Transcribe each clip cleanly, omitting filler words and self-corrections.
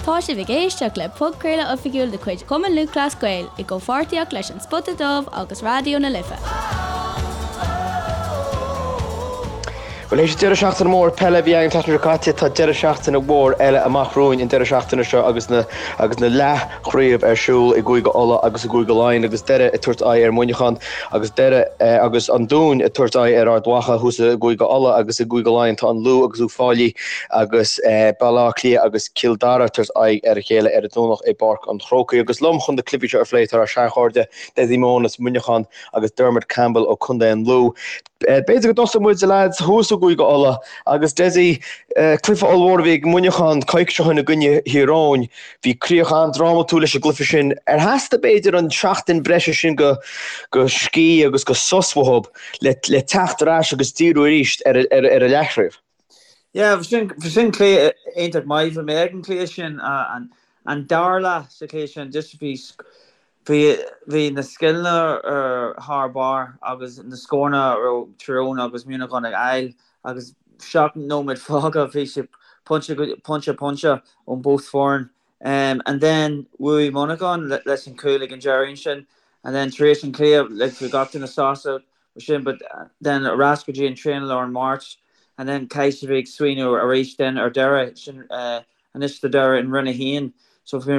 Tá sibh ag éisteacht le podchraoladh oifigiúil de chuid Chumann Lúthchleas Gael i gcomhpháirtíocht leis An Spota Dubh agus Raidió na Life. Bhuel, théis deireadh seachtaine mór peile a bhí againn an tseachtain seo caite, tá deireadh seachtaine mhór eile amach romhainn an deireadh seachtaine seo agus na agus na leathchraobh ar siúl i gCúige Uladh agus i gCúige Laighean agus Doire ag tabhairt aghaidh ar Mhuineachán agus Doire agus an Dún ag tabhairt aghaidh ar Ard Mhacha thuas i gCúige Uladh agus i gCúige Laighean tá an Lú agus Uíbh Fhailí agus Baile Átha Cliath agus Cill Dara ag tabhairt aghaidh ar a chéile ar an Domhnach i bPáirc an Chrócaigh. Agus liom chun na cluichí seo a phlé tá ár seanchairde Dessie Mohan as Muineachán agus Dermot Campbell ó Contae an Lú. B'fhéidir go dtosóidh muid, a leaids, thuas i gCúige Uladh agus Dessie, cluiche ollmhór a bhí ag Muineachán coicís ó shin i gcoinne Thír Eoghain. Bhí críoch an-drámatúil leis an gcluiche sin. Ar theastaigh b'fhéidir an seachtain breise sin go scíth agus go sos uathub le teacht ar ais agus díriú arís ar an leathchraobh? Yeah, bhí sin, bhí sin cluiche iontach maith. Bhí mé ag an cluiche sin, an, an dara leath sa chluiche sin, just bhí, bhí, bhí na scileanna ar thar barr agus na scóranna a raibh Tír Eoghain agus Muineachán ag fháil agus 7 nóiméad fágtha bhí sé pointe, pointe, pointe ón both foireann. Um, and then bhuaigh Muineachán leis an cúl ag an deireadh ansin and then tar éis an cluiche like bhí gach duine sásta sin but then ar ais go dtí an traenáil ar an Máirt and then caithfidh siad bheith ag smaoineamh arís then ar deireadh sin anois do deireadh in Roinn 1 so bhí mé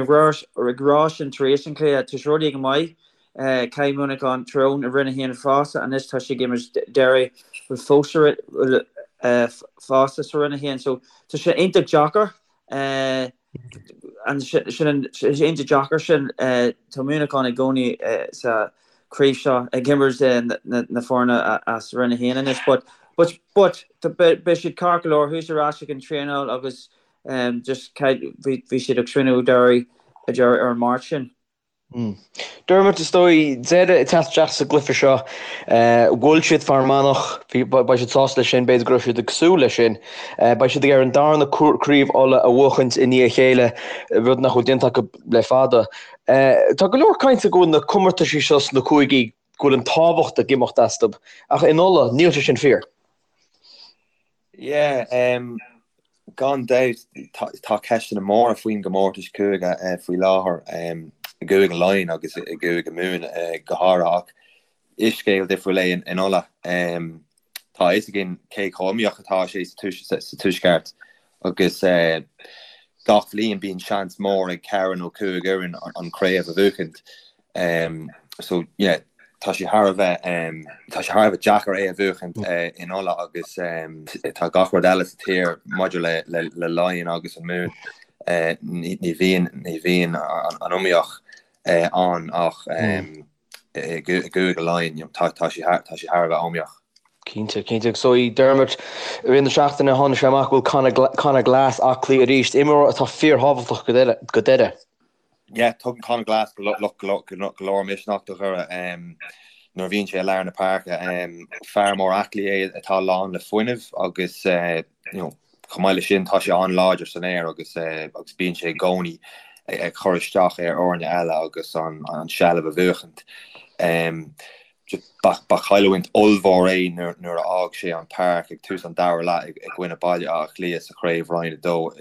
ag rá sin tar éis an chluiche tá sé rudaí go maith caithfidh Muineachán Tír Eoghain i Roinn 1 fosta anois tá sé ag imirt deireadh bhfuil fós fosta sa Roinn 1 so tá sé iontach deacair An sin an iontach deacair sin. Tá Muineachán i gcónaí sa chraobh seo ag imirt na foirne as Roinn 1 anois but but but beidh siad ceart go leor thuas ar ais ag an traenáil agus just bhí siad ag smaoineamh deireadh deireadh ar an Máirt sin. Dermot, is dóigh, Doire ag teacht isteach sa gcluiche seo. Bhuail siad Fear Manach, beidh siad sásta leis sin, b'fhéidir go raibh siad ag súil leis sin. Beidh siad ag iarraidh an darna craobh Uladh a bhuachaint i ndiaidh a chéile, rud nach bhfuil déanta acu le fada. Tá go leor cainte go bhfuil na comórtaisí seo sna cúigí, go bhfuil an tábhacht ag imeacht astu, ach in Uladh, níl sé sin fíor. Yeah, gan dabht tá ceisteanna móra faoin gcomórtas cúige faoi láthair i gCúige Laighean agus i gCúige Mumhan go háirithe ach is scéal difriúil é in Uladh. Tá a fhios againn cé chomh iomaíoch atá sé sa Tuaisceart agus gach bhliain bíonn seans mór ag ceithre nó cúig fhoireann an chraobh a bhuachaint. So yeah, tá sé thar a bheith tá sé thar a bheith deacair é a bhuachaint in Uladh agus tá gach rud eile sa tír maidir le le le Laighean agus an Mumhan ní ní bhíonn ní bhíonn an iomaíocht ann ach i gCúige Laighean tá tá sé tá sé thar a bheith iomaíoch. Cinnte, cinnte. Agus so Dermot, i rith na seachtaine tháinig sé amach go bhfuil Conor Glass aclaí arís, imreoir atá fíorthábhachtach go Doire. Yeah, tugann Conor Glass go leor misneach do Dhoire nuair a bhíonn sé i lár na páirce. Fear mór aclaí é atá lán le fuinneamh agus you know, chomh maith leis sin tá sé an-láidir san aer agus agus bíonn sé i gcónaí ag cur isteach ar fhoirne eile agus an an seilbh a bhuachaint. Ba chailliúint ollmhór é nuair a fhág sé an páirc ag tús an dara leath i gcoinne Baile Átha Cliath sa chraobh Roinn 2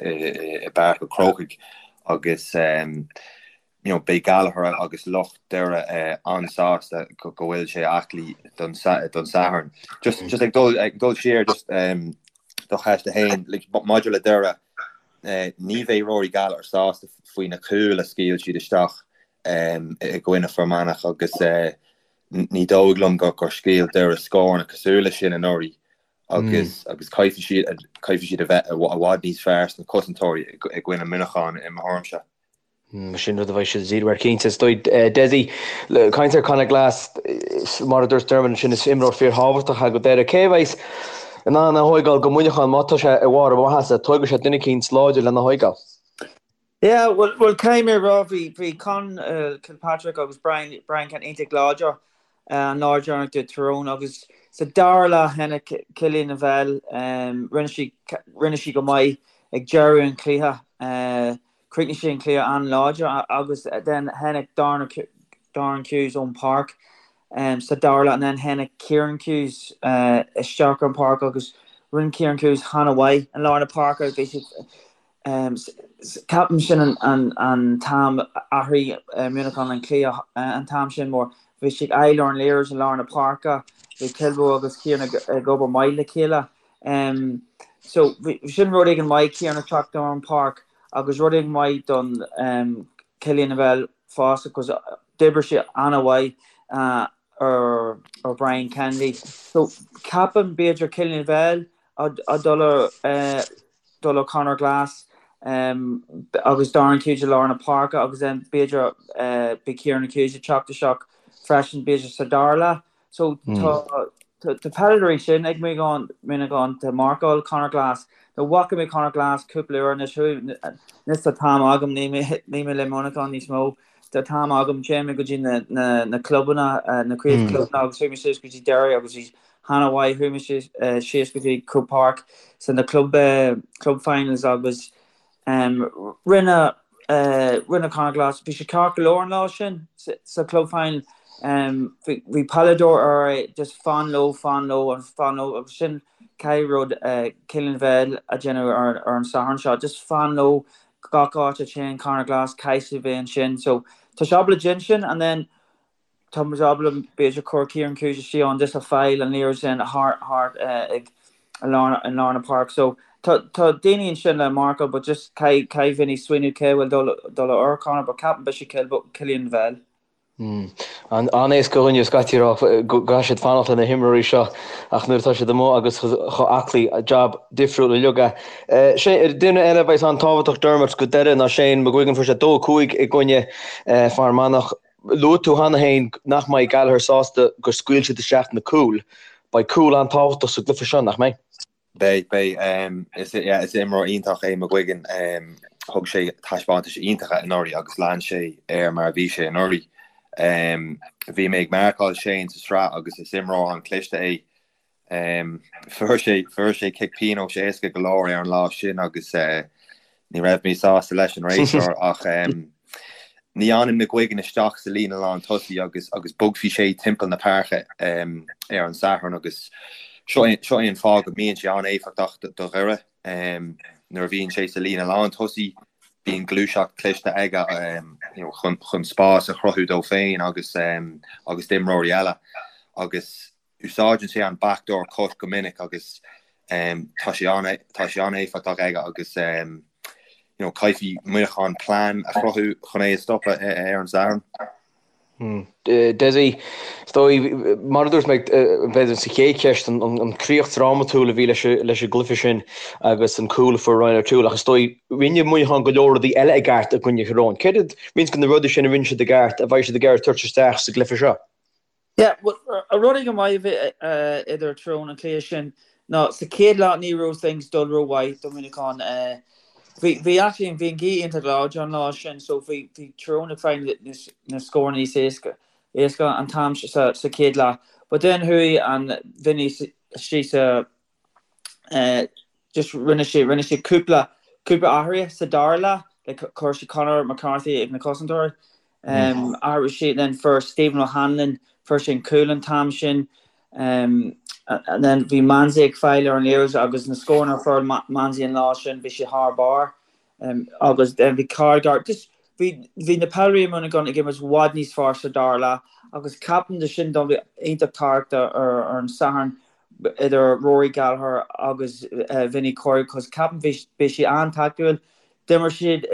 i bPáirc an Chrócaigh agus you know beidh Gallagher agus lucht Doire an-sásta go bhfuil sé aclaí don Satharn. Just just ag dul ag dul siar just do cheist a haon like maidir le Doire ní bheidh Rory Gallagher sásta faoi na cúil a scaoil siad isteach i gcoinne Fear Manach agus ní dóigh liom gur scaoil Doire scóranna cosúil leis sin anuraidh agus agus caithfidh siad caithfidh siad a bheith i bhfad níos fearr sna cosantóirí i gcoinne Muineacháin i mo thuairimse. Sin rud a bheidh siad ag díriú air cinnte. Is dóigh Dessie, caint ar Conor Glass, mar a dúirt Dermot ansin, is imreoir fíorthábhachtach é go Doire. Cé a bheas in ann é a thóigeáil go Muineachán má tá sé i bharr a mhaitheasa? Tógfaidh sé duine eicínt láidir lena thóigeáil. Yeah, bhuel, bhuel, caithfidh mé a rá, bhí, bhí Con Kilpatrick agus Brian, Brian Ken iontach láidir an lá deireanach do Tyrone agus sa dara leath tháinig Cillian Lavelle, rinne sé, rinne sé go maith ag deireadh an chluiche, chríochnaigh sé an cluiche an-láidir agus then tháinig Darren, Darren Hughes ón páirc sa dara leath and then tháinig Kieran Hughes isteach ar an páirc agus rinne Kieran Hughes an-mhaith i lár na páirce, bhí siad. Ceapaim sin an t-am athraigh Muineachán an cluiche an t-am sin mar bhí siad ag fáil ar an liathróid i lár na páirce, bhí Kilboe agus Kieran ag obair maith le chéile. So bhí sin rud éigin maith Kieran ag teacht ar an páirc agus rud éigin maith don Cillian Lavelle fosta because d'oibrigh sé an-mhaith ar Brian Kennedy. So ceapaim b'fhéidir Cillian Lavelle ag dul ar dul ar Conor Glass agus Darren Hughes i lár na páirce agus then b'fhéidir beidh Kieran Hughes ag teacht isteach freisin b'fhéidir sa dara leath. So tá tá peileadóirí sin ag Muineachán tá marcáil Conor Glass. Now bhfaca mé Conor Glass cúpla uair anois anois tá t-am agam níl mé níl mé le Muineachán níos mó. Tá t-am agam téann mé go dtí na na na clubanna na craobh clubanna agus chuaigh mé suas go dtí Derry agus bhí han-mhaith. Chuaigh mé síos go dtí Croke Park sa na club club finals agus rinne rinne Conor Glass, bhí sé ceart go leor an lá sin sa club final. Bhí peileadóir air é just fan leo, fan leo agus fan leo agus sin caithfidh rud Cillian Lavelle a dhéanamh ar an Satharn seo. Just fan leo gach áit a téann Conor Glass caithfidh sé bheith ansin. So tá sé ábalta déanamh sin and then Tá muid ábalta b'fhéidir cur Kieran Hughes istigh ann just a fáil an liathróid sin thart thart ag i lár i lár na páirce. So tá tá daoine ansin le marcáil but just caithfidh caithfidh Vinny smaoineamh cé bhfuil dul dul ar Conor but ceapaim beidh sé Cillian Lavelle. An-éasca do dhuine scaití a rá go gcaithfidh siad fanacht le na himreoirí seo ach nuair atá siad amuigh agus chomh aclaí, jab difriúil uilig é. Duine eile a bheas an-tábhachtach Dermot go deireadh ná Shane McGuigan fuair sé 2-5 i gcoinne Fear Manach. Luaigh tú cheana féin nach mbeidh Gallagher sásta gur scaoil siad isteach na cúil. Beidh cúl an-tábhachtach sa gcluiche seo, nach mbeidh? Beidh, beidh. Is imreoir iontach é McGuigan. Thug sé taispeántais iontacha anuraidh agus lean sé air mar a bhí sé anuraidh. Bhí mé ag marcáil Shane sa sraith agus is imreoir an-chliste é. Fuair sé fuair sé cic pionóis éasca go leor ar an lá sin agus ní raibh mé sásta leis an réiteoir ach ní fhanann McGuigan isteach sa líne lán tosaigh agus agus bogfaidh sé timpeall na páirce ar an Satharn agus seo é seo é an fáth go mbíonn sé an-éifeachtach do Dhoire. Nuair a bhíonn sé sa líne lán tosaigh bíonn gluaiseacht cliste aige chun chun spás a chruthú dó féin agus agus d'imreoirí eile agus Úsáideann sé an backdoor cut go minic agus tá sé tá sé an-éifeachtach aige agus you know caithfidh Muineachán plean a chruthú chun é a stopadh ar an Satharn. Dessie, is dóigh, mar a dúirt mé b'fhéidir sa chéad cheist, an críoch drámatúil a bhí leis an gcluiche sin agus an cúl a fuair Ryan O'Toole ach is dóigh rinne Muineachán go leor rudaí eile i gceart i gcoinne Thír Eoghain. Céard iad roinnt de na rudaí sin a rinne siad i gceart a bheidh siad ag iarraidh tabhairt isteach sa gcluiche seo? Yeah, well, rud éigin maith a bhí idir Tír Eoghain an cluiche sin ná sa chéad leath ní raibh things dul rómhaith do Mhuineachán. Bhí, bhí actually, bhí an ghaoth iontach láidir an lá sin so bhí, bhí Tír Eoghain ag fáil na scóranna níos éasca, éasca an t-am sa, sa chéad leath. But then chuaigh an Vinny istigh sa, just rinne sé rinne sé cúpla cúpla athruithe sa dara leath like chuir sé Conor McCarthy ag na cosantóirí um, athraigh sé then fuair Stephen O'Hanlon fuair sé an cúl an t-am sin um, and then bhí Manzie ag fáil ar an liathróid agus na scóranna a fuair Manzie an lá sin bhí sé thar barr um, agus then bhí Cargar just bhí bhí na peileadóirí i Muineachán ag imirt i bhfad níos fearr sa dara leath agus ceapaim de sin don bhí iontach tábhachtach ar, ar an Satharn idir Rory Gallagher agus Vinny Corey cos ceapaim bhí beidh sé an-tactúil. D'imir siad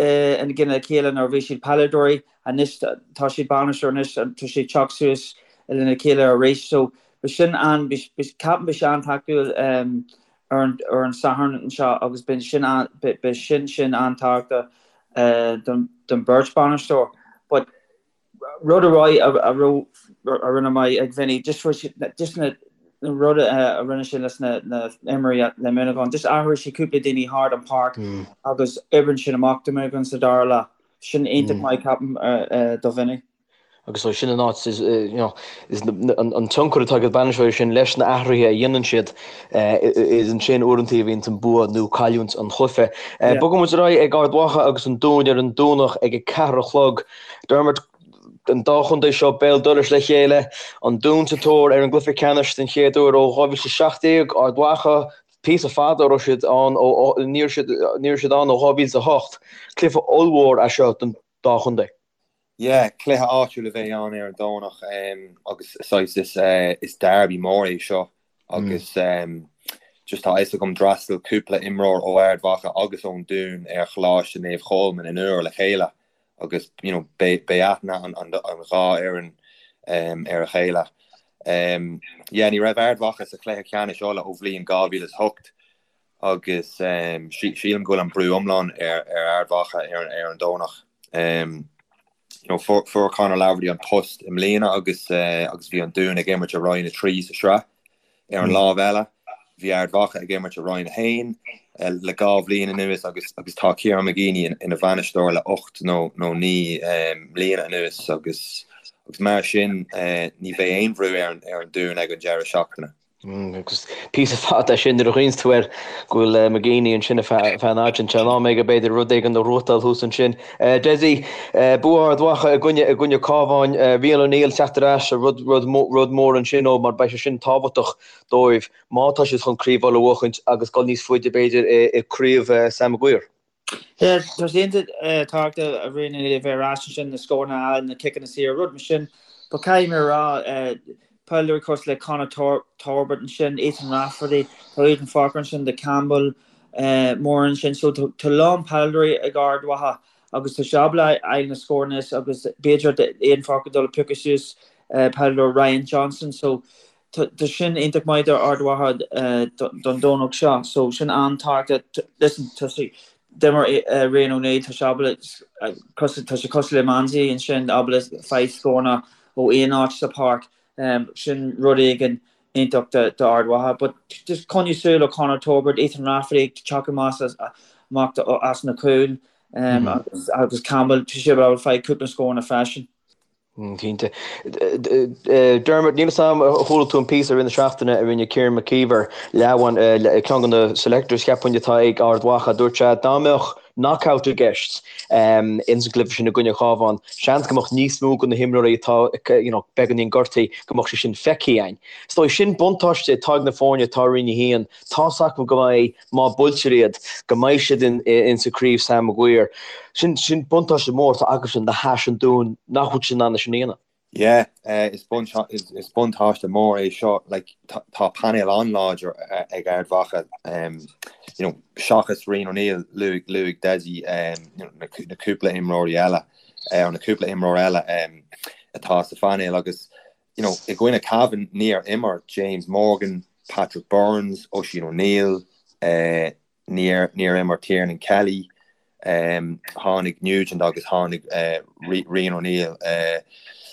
in gcoinne a chéile nuair a bhí siad peileadóirí, anois tá siad bainisteoir anois tá siad teacht suas lena chéile arís so beidh sin an ceapaim beidh sé an-tactúil ar an ar an Satharn anseo agus beidh sin an beidh sin sin an-tábhachtach don don beirt bainisteoir but Rud a raibh a raibh a rinne maith ag Vinny just just na rud a rinne sé leis na na imreoirí le Muineachán just athraigh sé cúpla daoine thart an páirc agus oibríonn sin amach do Muineachán sa dara leath. Sin iontach maith ceapaim do Vinny. Agus sin an áit is you know is an tionchar atá ag an bainisteoir sin leis na athruithe a dhéanann siad is ansin uaireanta a bhíonn an bua nó cailliúint an chluiche. Bogfaidh muid ar aghaidh ag Ard Mhacha agus an Dún ar an Domhnach ag 4 a chlog. Dermot, an dá chontae seo béal dorais le chéile, an Dún sa tóir ar an gcluiche ceannais den chéad uair ó 2017, Ard Mhacha. Píosa fada a raibh siad ann ó ní raibh siad ní raibh siad ann ó 2008. Cluiche ollmhór é seo don dá chontae. Yeah, cluiche áitiúil a bheidh ann ar an Domhnach agus saghas is is derby mór é seo agus just tá a fhios agam d'fhreastail cúpla imreoir ó Ard Mhacha agus ón Dún ar Choláiste Naomh Cholmáin in Iúr le chéile agus you know beidh beidh aithne an an an dhá fhoireann ar a chéile. Yeah, ní raibh Ard Mhacha sa chluiche ceannais Uladh ó bhliain 2008 agus sílim go bhfuil an brú iomlán ar Ard Mhacha ar an Domhnach. Fuair Conor Laverty an post i mbliana agus agus bhí an Dún ag imirt i Roinn 3 sa sraith. Ar an lámh eile, bhí Ard Mhacha ag imirt i Roinn 1 le 2 bhliain anuas agus agus tá Kieran McGeeney ina bhainisteoir le 8 nó 9 mbliana anuas agus agus mar sin ní bheidh aon bhrú ar an Dún ag an deireadh seachtaine. Agus píosa fada é sin nuair a chuimhníonns tú air go bhfuil McGeeney ansin ar feadh an fhaid sin. In am aige b'fhéidir rud éigin a ghnóthachtáil thuas ansin. Dessie, bua Ard Mhacha i gcoinne i gcoinne Cabháin. Rian O'Neill teacht ar ais, rud rud rud mór ansin ó mar beidh sé sin tábhachtach dóibh má tá siad chun Craobh Uladh a bhuachaint agus dul níos faide b'fhéidir i gCraobh Sam Maguire. Yeah, tá sé iontach tábhachtach Rian O'Neill a bheith ar ais ansin, na scóranna a fháil, na ciceanna saora, rud mar sin. But caithfidh mé a rá, peileadóirí cosúil le Conor Torbert ansin, Ethan Rafferty, tá Aidan Forker ansin, do Campbell, Moore ansin. So tá a lán peileadóirí ag Ard Mhacha agus tá sé ábalta a fháil na scóranna agus b'fhéidir Aidan Forker dul a piocadh suas peileadóir Ryan Johnson. So Tá sin iontach maith do Ard Mhacha don Domhnach seo. So sin an-tábhachtach. Listen, tá sé, d'imir Rian O'Neill, tá sé ábalta, tá sé cosúil le Manzie ansin, ábalta fáil scóranna ó aon áit sa pháirc. Sin rud éigin iontach do Ard Mhacha. But just coinnigh súil ar Conor Torbert, Ethan Rafferty ag teacht amach as na cúil agus Campbell, tá sé ábalta fáil cúpla scóranna freisin. Cinnte. Dermot, níl 'fhios a'm ar chuala tú an píosa i rith na seachtaine a rinne Kieran McKeever, leamhan, ceann de na selectors cheapfainn atá ag Ard Mhacha. Dúirt sé dá mbeadh knockout i gceist ins an gcluiche sin i gcoinne Chabháin, seans go mbeadh níos mó de na himreoirí atá you know beagáinín gortaithe go mbeadh sé sin feicthe againn. Is dóigh sin buntáiste atá ag na foirne atá i Roinn 1. Tá's acu go mbeidh má buailtear iad, go mbeidh siad in sa Craobh Sam Maguire. Sin sin buntáiste mór atá acusan le hais an Dúin nach bhfuil siad in ann é sin a dhéanamh. Yeah, is is buntáiste mór é seo. Like, tá painéal an-láidir ag Ard Mhacha, you know, seachas Rian O'Neill, luaigh luaigh Dessie you know, na na cúpla imreoirí eile, nó na cúpla imreoir eile atá sa phainéal agus you know, i gcoinne Cavan níor imir James Morgan, Patrick Burns, Oisín O'Neill, níor níor imir Tiernan Kelly, tháinig Nugent agus tháinig Rian O'Neill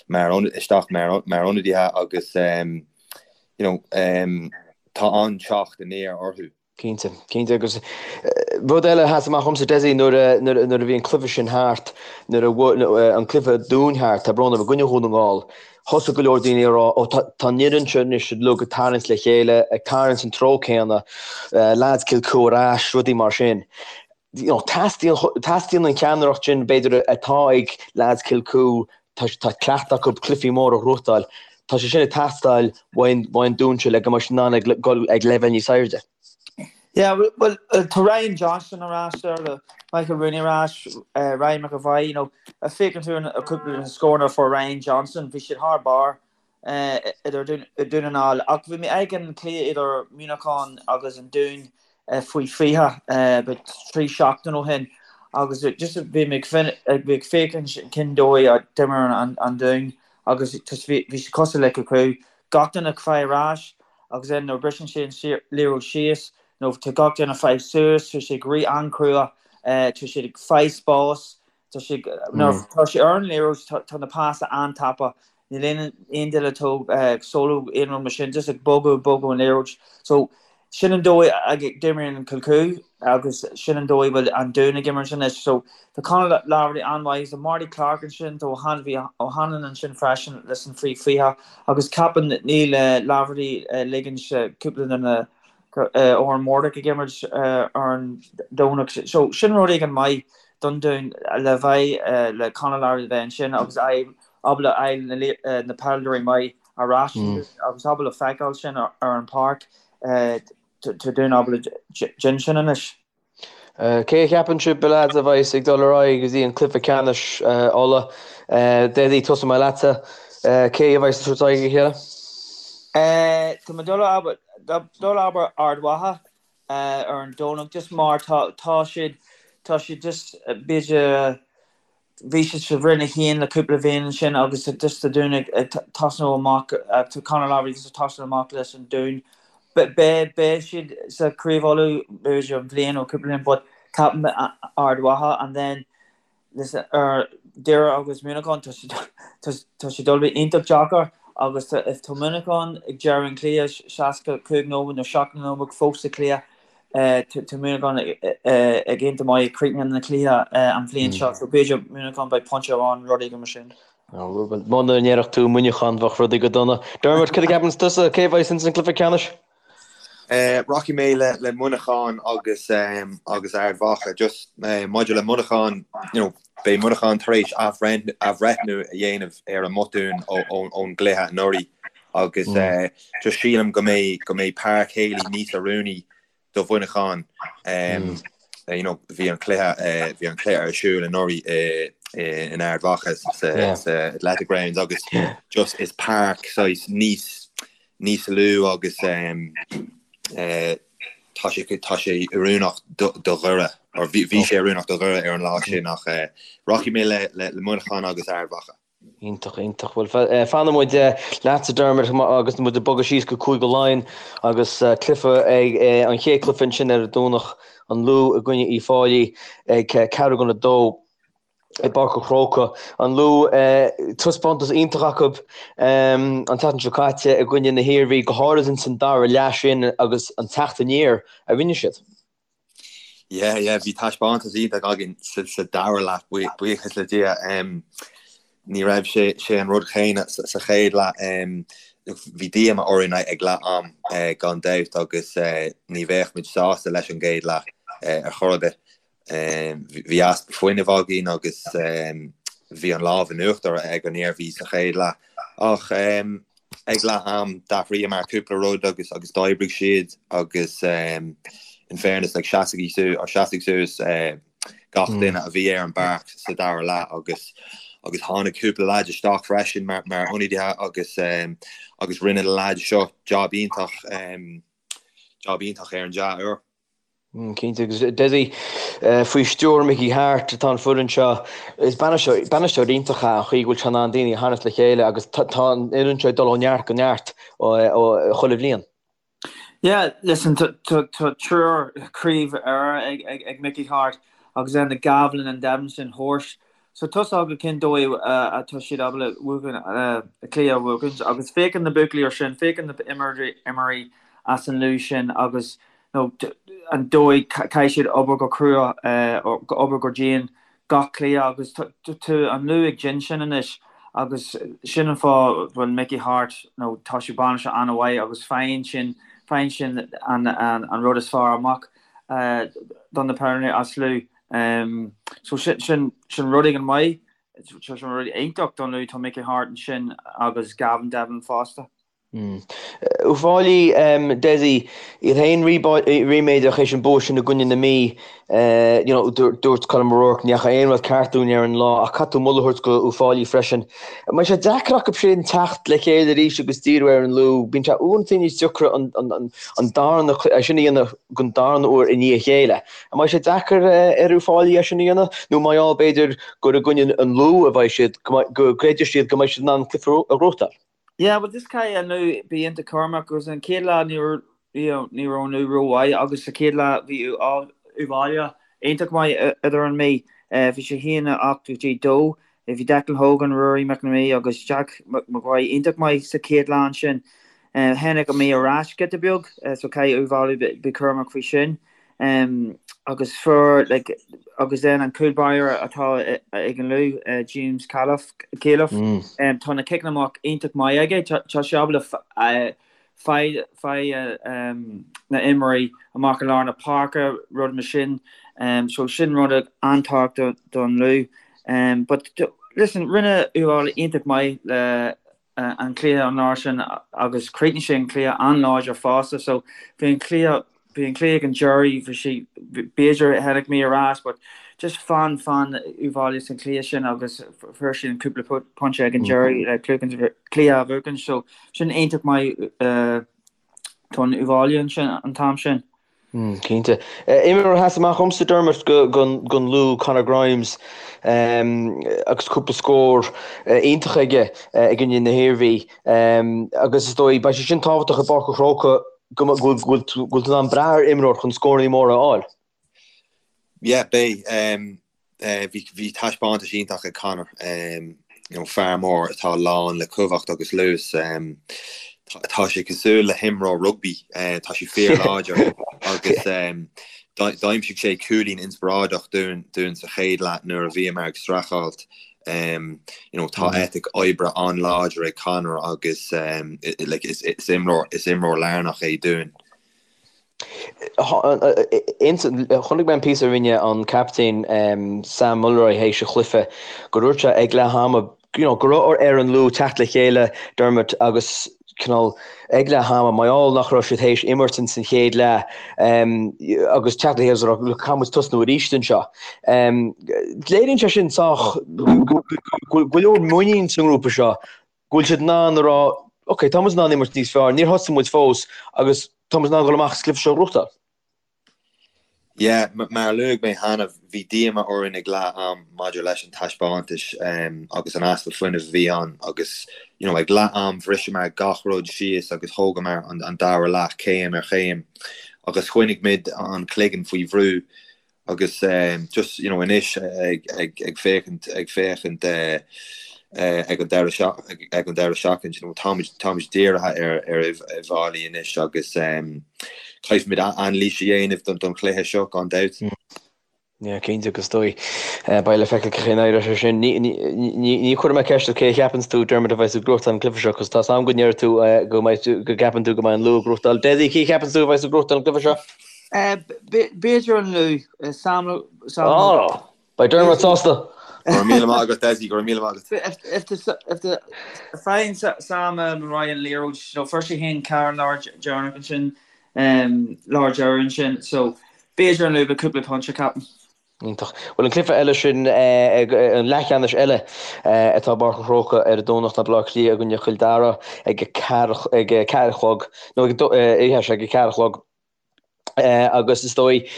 mar isteach mar mar ionadaithe agus you know, tá an-teacht aniar orthu. Cinnte, cinnte. Agus rud eile a sheas amach dhomsa, Dessie, nuair a, nuair a bhí an cluiche sin thart, nuair a bhí an cluiche Dúin thart, tá brón orm, i gcoinne Dhún na nGall, thosaigh go leor daoine ag rá, ó tá, tá an fhoireann seo anois uilig ag tarraingt le chéile, ag tarraingt san treo céanna, lads Kilcoo ar ais, rudaí mar sin. You know, teastaíonn, teastaíonn an cheannaireacht sin, b'fhéidir, atá ag lads Kilcoo, tá, tá cleachtadh acu cluichí móra a ghnóthachtáil, tá sé sin ag teastáil uaidh an Dún seo le go mbeidh siad in ann ag dul ag leibhéal níos airde. Yeah, well, tá Ryan Johnston ar ais there, le Michael Rooney ar ais, Ryan McAvoy, you know, a féachann tú ar cúpla de na scóranna a fuair Ryan Johnston, bhí siad thar barr idir Dún na nGall. Ach bhí mé ag an cluiche idir Muineachán agus an Dún faoi 20 about 3 seachtain ó shin agus just bhí mé ag féachaint cén dóigh a d'imir an Dún agus bhí sé cosúil le Kilcoo. Gach duine ag fáil ar ais agus then nuair a briseann sé an liathróid síos nó tá gach duine ag fáil suas, tá sé ag rith an-chrua, tá siad ag fáil spás, tá sé nuair tá sé ar an liathróid tá na pasa an-tapa Níl aon aon duine ag solo aon rud mar sin, just ag bogadh bogadh an liathróid. So sin an dóigh a d'imríonn Kilcoo agus sin an dóigh a bhfuil an Dún ag imirt anois. So tá Conor Laverty an-mhaith, tá Marty Clarke ansin, tá bhí O'Hanlon ansin freisin leis an faoi 20 agus ceapaim níl Laverty ligint cúpla de na Odhrán Murdock ag imirt ar an Domhnach. So sin rud éigin maith don Dún le bheith le Conor Laverty a bheith ansin agus ábalta fháil na peileadóirí maith ar ais agus ábalta feiceáil sin ar an páirc. Tá Dún ábalta déanamh sin anois. Cé a cheapann sibh, a leaids, a bheas ag dul ar aghaidh go dtí an cluiche ceannais Uladh? Dessie, tosóidh mé leatsa. Cé a bheas ag tabhairt aghaidh a chéile? Tá mé ag dul abair Ard Mhacha ar an Domhnach just mar tá tá siad tá siad just b'fhéidir Bhí siad sa Roinn 1 le cúpla bhliain ansin agus just tá Dún ag tosnú amach, tá Conor Laverty just ag tosnú amach leis an Dún. Beidh siad sa Craobh Uladh b'fhéidir an bhliain nó cúpla bliain but ceapaim Ard Mhacha and then listen ar Doire agus Muineachán tá sé tá sé dul bheith iontach deacair agus if tá Muineachán ag deireadh an cluiche 65 nóiméad nó 70 nóiméad fós sa cluiche Tá Muineachán ag iontach maith ag críochnú na cluiche an bhliain seo, so b'fhéidir Muineachán beidh pointe amháin rud éigin mar sin. Muna ndéarfadh tú Muineachán bheadh rudaí go dona. Dermot, cad a cheapann tusa? Cé a bheas ins an cluiche ceannais? Rachaidh mé le Muineachán agus agus Ard Mhacha. Just maidir le Muineachán, you know, beidh Muineachán tar éis athbhreithniú a dhéanamh ar a mbotúin ón gcluiche anuraidh agus just sílim go mbeidh go mbeidh Páirc Healy níos oiriúnaí do Mhuineachán. You know, bhí an cluiche bhí an cluiche ar siúl anuraidh in Ard Mhacha sa sa Athletic Grounds agus just is páirc saghas níos níos lú agus tá sé tá sé oiriúnach do Dhoire or bhí bhí sé oiriúnach do Dhoire ar an lá sin ach rachaidh mé le le Muineachán agus Ard Mhacha. Iontach, iontach. Bhuel, fanfaidh muid leatsa Dermot agus muid ag bogadh síos go Cúige Laighean agus cluiche ag an chéad cluiche ansin ar an Domhnach, an Lú i gcoinne Uíbh Fhailí ag ceathrú don a dó i bPáirc an Chrócaigh. An Lú, taispeántas iontach acu an tseachtain seo caite i gcoinne na hIarmhí, go háirid ins an dara leath sin agus an teacht aniar a rinne siad. Yeah, yeah, bhí taispeántas iontach againn sa dara leath, buíochas le Dia. Ní raibh sé sé an rud chéanna sa chéad leath. Bhí díoma orainn ag leath am gan dabht agus ní bheadh muid sásta leis an gcéad leath ar chor ar bith. Bhí easpa fuinnimh againn agus bhí an lámh in uachtar ag an Iarmhí sa chéad leath. Ach ag leath am d'athraíomar cúpla rud agus agus d'oibrigh siad agus in fairness like sheasaigh or sheasaigh suas gach duine a bhí ar an bpáirc sa dara leath agus agus tháinig cúpla leaid isteach freisin mar mar ionadaithe agus agus rinne na leaids seo job iontach job iontach ar an dea-uair. Cinnte, agus Dessie, faoi stiúir Mickey Harte atá an foireann seo. Is bainisteoir iontach é an chaoi go bhfuil sé in ann daoine a tharraingt le chéile agus tá an fhoireann seo ag dul ó neart go neart chuile bhliain. Yeah, listen, tá triúr craobh Éire ag Mickey Harte agus then the Gavin and Devin sin horse. So tá a fhios acu cén dóigh atá siad ábalta buachan, cluiche a bhuachaint agus féachann na buachaillí ar sin, féachann na imreoirí as an Lú sin agus nó an dóigh caithfidh siad obair go crua, obair go dian gach cluiche agus tá an Lú ag déanamh sin anois agus sin an fáth bhfuil Mickey Harte nó tá sé bainisteoir an-mhaith agus faigheann sin faigheann sin an an rud is fearr amach don na peileadóirí as Lú. So sin sin sin rud éigin maith, sin rud iontach don Lú tá Mickey Harte ansin agus Gavin Devlin fosta. Uíbh Fhailí, Dessie, iad féin ríméadach théis an bua sin i gcoinne na Mí. You know, dúirt Colm O'Rourke, ní dheachaigh aon rud ceart dúinn ar an lá ach caithfidh tú moladh a thabhairt go Uíbh Fhailí freisin. An mbeidh sé deacair acu sin teacht le chéile arís agus díriú ar an Lú? Bíonn sé uaireanta níos deacra an darna, é sin a dhéanamh don darna huair i ndiaidh a chéile. An mbeidh sé deacair ar Uíbh Fhailí é sin a dhéanamh? Nó mar gheall b'fhéidir gur i gcoinne an Lú a bheidh siad, go gcreidfidh siad go mbeidh siad in ann an cluiche a ghnóthachtáil? Yeah, well just caithfidh an Lú bí iontach cúramach agus an chéad lá ní raibh you know ní raibh an Lú rómhaith agus sa chéad lá bhí Uíbh Fhailí iontach maith idir an Mí. Bhí sé 1 8 go dtí 2. Bhí Declan Hogan, Ruairí McNamee agus Jack Maguire iontach maith sa chéad lá ansin. Tháinig an Mí ar ais giota beag so caithfidh Uíbh Fhailí bí cúramach faoi sin. Agus fuair like agus then an cúl báire atá ag an Lú, James Califf, tá na ciceanna amach iontach maith aige, tá sé ábalta faigh na imreoirí amach i lár na páirce, rud mar sin. So sin rud an-tábhachtach don Lú. But listen, rinne Uíbh Fhailí iontach maith le an cluiche an lá sin agus chríochnaigh sé an cluiche an-láidir fosta. So bhí an cluiche. Bhí an cluiche ag an deireadh, bhí sé, b'fhéidir tháinig mé ar ais but just fan, fan Uíbh Fhailí san cluiche sin agus fuair siad an cúpla pointe ag an deireadh le cluiche a bhuachan so sin iontach maith don Uíbh Fhailí ansin an t-am sin. Cinnte. Imreoir a sheas amach dhomsa, Dermot, don Lú, Conor Grimes, agus cúpla scór iontach aige i gcoinne na hIarmhí. Agus is dóigh, beidh sé sin tábhachtach i bPáirc an Chrócaigh go bhfuil tú in ann brath ar imreoir chun scóranna móra a fháil. Yeah, beidh. Bhí taispeántas iontach ag Conor, you know, fear mór atá lán le cumhacht agus luas. Tá sé cosúil le himreoir rugbaí, tá sé fíorláidir agus d'aimsigh sé cúilín inspioráideach dúinn sa chéad leath nuair a bhíomar ag streachailt. You know, tá eitic oibre an-láidir ag Conor agus like, is imreoir is imreoir lárnach é dúinn. Chonaic mé an píosa a rinne an captaen Sam Mulroy théis an chluiche gur dúirt sé ag leath ama you know, go raibh ar an Lú teacht le chéile Dermot agus cineál ag leath ama mar gheall nach raibh siad théis imirt ins an chéad leath agus teacht le chéile is a rá look caithfidh muid tosnú arís anseo. Léiríonn sé sin sách go bhfuil go leor muinín sa ngrúpa seo go bhfuil siad in ann a rá, ok, tá muid in ann imirt níos fearr, níor thosaigh muid fós agus tá muid in ann dul amach is cluiche seo a ghnóthachtáil. Yeah, mar a luaigh mé cheana, bhí díoma orainn ag leath am maidir leis an taispeántas agus an easpa fuinnimh a bhí ann agus you know ag leath am bhriseamar gach rud síos agus thógamar an dara leath céim ar chéim agus choinnigh muid an cloigeann faoi bhrú Agus just, you know, anois ag, ag, ag féachaint, ag féachaint ag an deireadh seach, ag an deireadh seachtain, you know, táimid, táimid dírithe ar, ar Uíbh Fhailí anois agus caithfimid anailís a dhéanamh don, don chluiche seo, gan dabht. Yeah, cinnte agus is dóigh. Beidh le feiceáil cén chaoi a n-éireoidh sé sin. Ní, ní, ní, ní chuirfidh mé ceist ort cé a cheapanns tú, Dermot, a bheas ag gnóthachtáil an cluiche seo, cos tá's a'm go ndéarfaidh tú go mbeidh tú, go gceapann tú go mbeidh an Lú ag gnóthachtáil. Dessie, cé a cheapanns tú a bheas ag gnóthachtáil an cluiche seo? B'fhéidir an Lú. Sam. Ó! Beidh Dermot sásta! Go raibh míle maith agat Dessie, go raibh míle maith agat. If the faigheann Sam Mulroy an liathróid, you know, fuair sé féin ceathair an lá deireanach ansin, lá deireadh ansin, so b'fhéidir an Lú le cúpla pointe, ceapaim. Iontach. Bhuel, an cluiche eile sin, an leathcheannais eile atá i bPáirc an Chrócaigh ar an Domhnach ná Baile Átha Cliath i gcoinne Chill Dara ag a ceathair ag a ceathair a chlog, nó ag a, ag a ceathair a chlog. Agus is dóigh,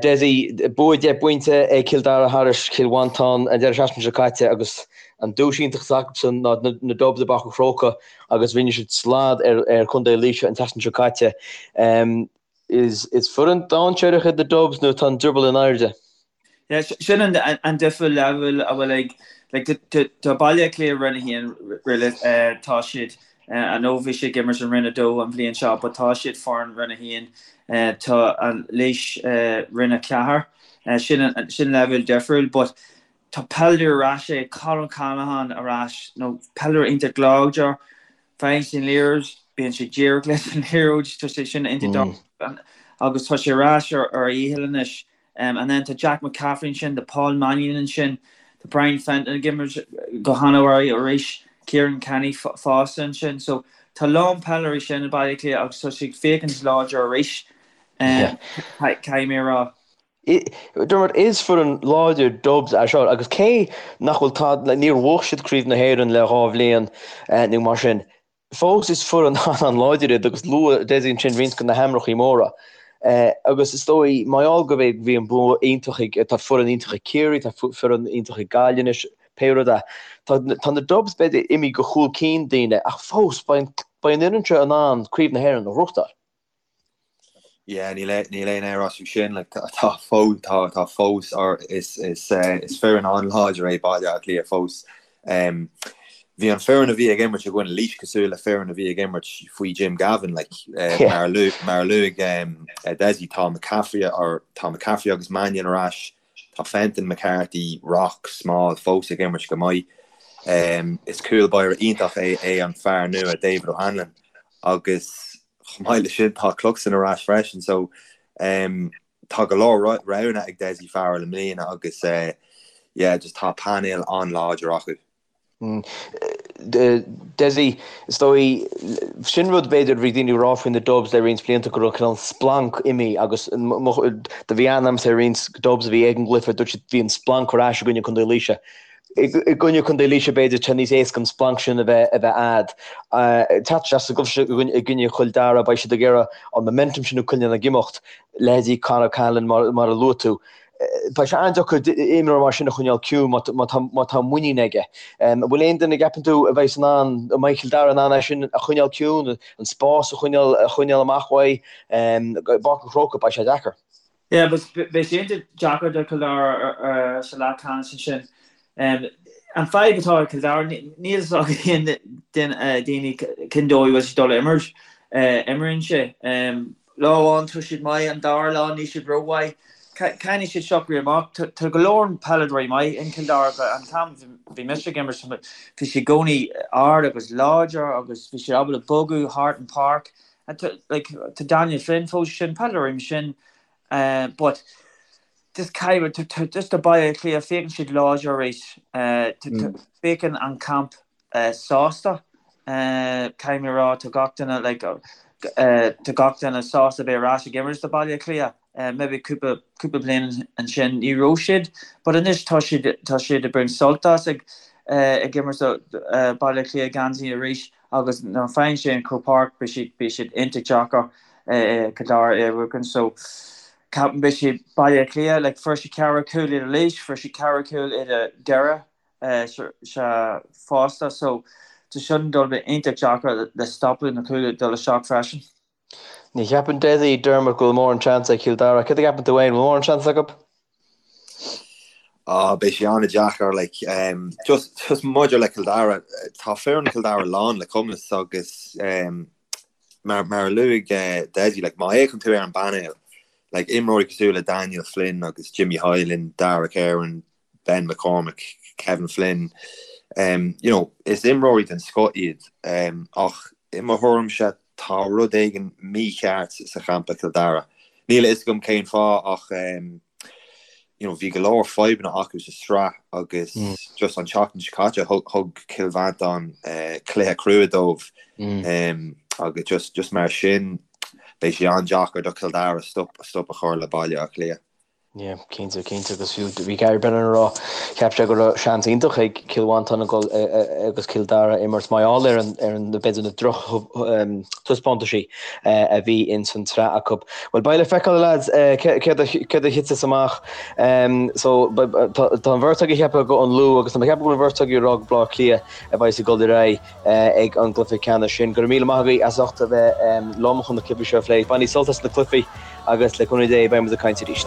Dessie, bua deich bpointe ag Cill Dara thairis Cill Mhantáin an deireadh seachtaine seo caite agus an duais iontach atá acusan ná na Dubs i bPáirc an Chrócaigh agus rinne siad slad ar Chontae Laoise an tseachtain seo caite. Is foireann dainséarach iad na Dubs nó tá an drioball in airde? Yeah, sin an an difear leibhéal a bhfuil ag like tá Baile Átha Cliath Roinn 1 really tá siad I know bhí siad ag imirt in Roinn 2 an bhliain seo but tá siad foireann Roinn 1 tá an Laois Roinn 4 sin sin leibhéal difriúil but tá peileadóir ar ais ag Colin Callaghan ar ais nó peileadóir iontach láidir Faigheann sé an liathróid, bíonn sé díreach leis an liathróid, tá sé sin iontach agus tá sé ar ais ar a dhícheall anois. And then tá Jack McCaffrey ansin, tá Paul Mannion ansin, tá Brian Fenton ag imirt go han-mhaith arís, Kieran Kenny fosta ansin. So tá a lán peileadóirí sin i Baile Átha Cliath agus tá siad ag féachaint láidir arís, caithfidh mé a rá. Dermot, is foireann láidir Dubs é seo agus cé nach bhfuil tá, níor bhuaigh siad Craobh na hÉireann le 2 bhliain nó mar sin, fós is foireann an-láidir iad agus luaigh Dessie ansin roinnt de na hainmneacha móra. Agus is dóigh, mar gheall go bhí bhí an bua iontach ag, tá foireann iontach ag Ciarraí, tá foireann iontach ag Gaillimh anois, pé rud é, tá tá na Dubs b'fhéidir imithe go chúl cinn daoine ach fós beidh beidh an fhoireann seo in ann Craobh na hÉireann a ghnóthachtáil. Yeah, níl níl aon amhras faoi sin, like, tá fós tá tá fós or is is is foireann an-láidir é Baile Átha Cliath fós. Um, bhí an foireann a bhí ag imirt i gcoinne Laois cosúil le foireann a bhí ag imirt faoi Jim Gavin, like, uh, yeah. mar a luaigh mar a luaigh um, Dessie, tá McCaffrey or tá McCaffrey agus Mannion ar ais, Tá Fenton, McCarthy, Rock, Small fós ag imirt go maith. Is cúl báire iontach é é an fear nua David O'Hanlon agus chomh maith leis sin tá Cluxton ar ais freisin so tá go leor roghanna ag Dessie Farrell i mbliana agus yeah just tá painéal an-láidir acu. Dessie, is dóigh, sin rud b'fhéidir a bhí daoine ag rá faoi na Dubs le roinnt blianta go raibh cineál splanc imithe agus do bhí aithne agamsa ar roinnt Dubs a bhí ag an gcluiche, dúirt siad bhí an splanc ar ais i gcoinne Contae Laoise. I gcoinne Contae Laoise b'fhéidir tá níos éasca an splanc sin a bheith a bheith a'd. Teacht isteach sa gcluiche seo i gcoinne Chill Dara beidh siad ag iarraidh an momentum sin a choinneáil ag imeacht, leithéidí Conor Cahalane mar mar a luaigh tú. Beidh sé an-deacair imreoir mar sin a choinneáil ciúin má tá muinín aige. An bhfuil aon duine a gceapann tú a bheidh in ann, an mbeidh Cill Dara in ann é sin a choinneáil ciúin, an spás a choinneáil a choinneáil amach uaidh? I bPáirc an Chrócaigh beidh sé deacair. Yeah, beidh sé iontach deacair do Chill Dara sa leathcheannais ansin. An fadhb atá ag Cill Dara, níl a fhios ag aon daoine cén dóigh a bhfuil siad dul a imirt. Imríonn sé. Lá amháin tá siad maith, an dara lá níl siad rómhaith. Caithfidh siad socrú amach. Tá go leor peileadóirí maith in Cill Dara. An t-am bhí mise ag imirt bhí siad i gcónaí ard agus láidir agus bhí siad ábalta bogadh thart an páirc. Tá Daniel Flynn fós sin, peileadóirí mar sin but just caithfidh, just tá Baile Átha Cliath, féachann siad láidir arís. Féachann an camp sásta. Caithfidh mé a rá, tá gach duine like tá gach duine sásta bheith ar ais ag imirt do Baile Átha Cliath. Maybe cúpla cúpla bliain ansin ní raibh siad but anois tá siad tá siad ag baint sult as ag ag imirt do Baile Átha Cliath geansaí arís agus nuair a faigheann sé an Croke Park beidh siad beidh siad iontach deacair Cill Dara a bhuachan so ceapaim beidh siad Baile Átha Cliath like fuair siad ceathracha cúl idir Laois fuair siad ceathracha cúl idir Doire sea fosta so tá sin dul bheith iontach deacair le stopadh na cúil dul isteach freisin. Ní cheapann Dessie Dermot go bhfuil mórán seans ag Cill Dara. Céard a cheapann tú féin? Bhfuil mórán seans acu? Ah, beidh sé an-deacair, like, um, just, just maidir le Cill Dara, tá foireann Chill Dara lán le cumas agus um, mar, mar a luaigh uh, Dessie, like, má fhéachann tú ar an bpainéal, like, imreoirí cosúil le Daniel Flynn agus Jimmy Hyland, Dara Kerwin, Ben McCormack, Kevin Flynn, you know, is imreoirí den scoth iad ach i mo thuairimse tá rud éigin mícheart sa champa Cill Dara. Níl a fhios agam cén fáth ach you know, bhí go leor fadhbanna acu sa sraith agus just an tseachtain seo caite thug Cill Mhantáin cluiche crua dóibh agus just, just mar sin beidh sé an-deacair do Chill Dara stop, stop a chur le Baile Átha Cliath. Yeah, cinnte, cinnte agus fiú bhí Gary Brennan ag rá cheap sé go raibh seans iontach ag Cill Mhantáin a dhul agus Cill Dara imirt mar gheall ar an ar an b'fhéidir na droch taispeántaisí a bhí ins an tsraith acu. Bhuel beidh le feiceáil a lads céard a céard a thitfeas amach. So tá an bheirt agaibh ag ceapadh go an Lú agus tá mé ag ceapadh go bhfuil an bheirt agaibh ag rá go Baile Átha Cliath a bheidh ag dul ar aghaidh. ag an gcluiche ceannais sin. Go raibh míle maith agaibh as ucht a bheith liom chun na cluichí seo a phlé. Bainigí sult as na cluichí agus le cúnamh Dé beidh muid ag caint arís.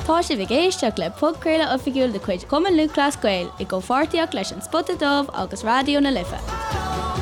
Tá sibh ag éisteacht le podchraoladh oifigiúil de chuid Chumann Lúthchleas Gael i gcomhpháirtíocht leis An Spota Dubh agus Raidió na Life.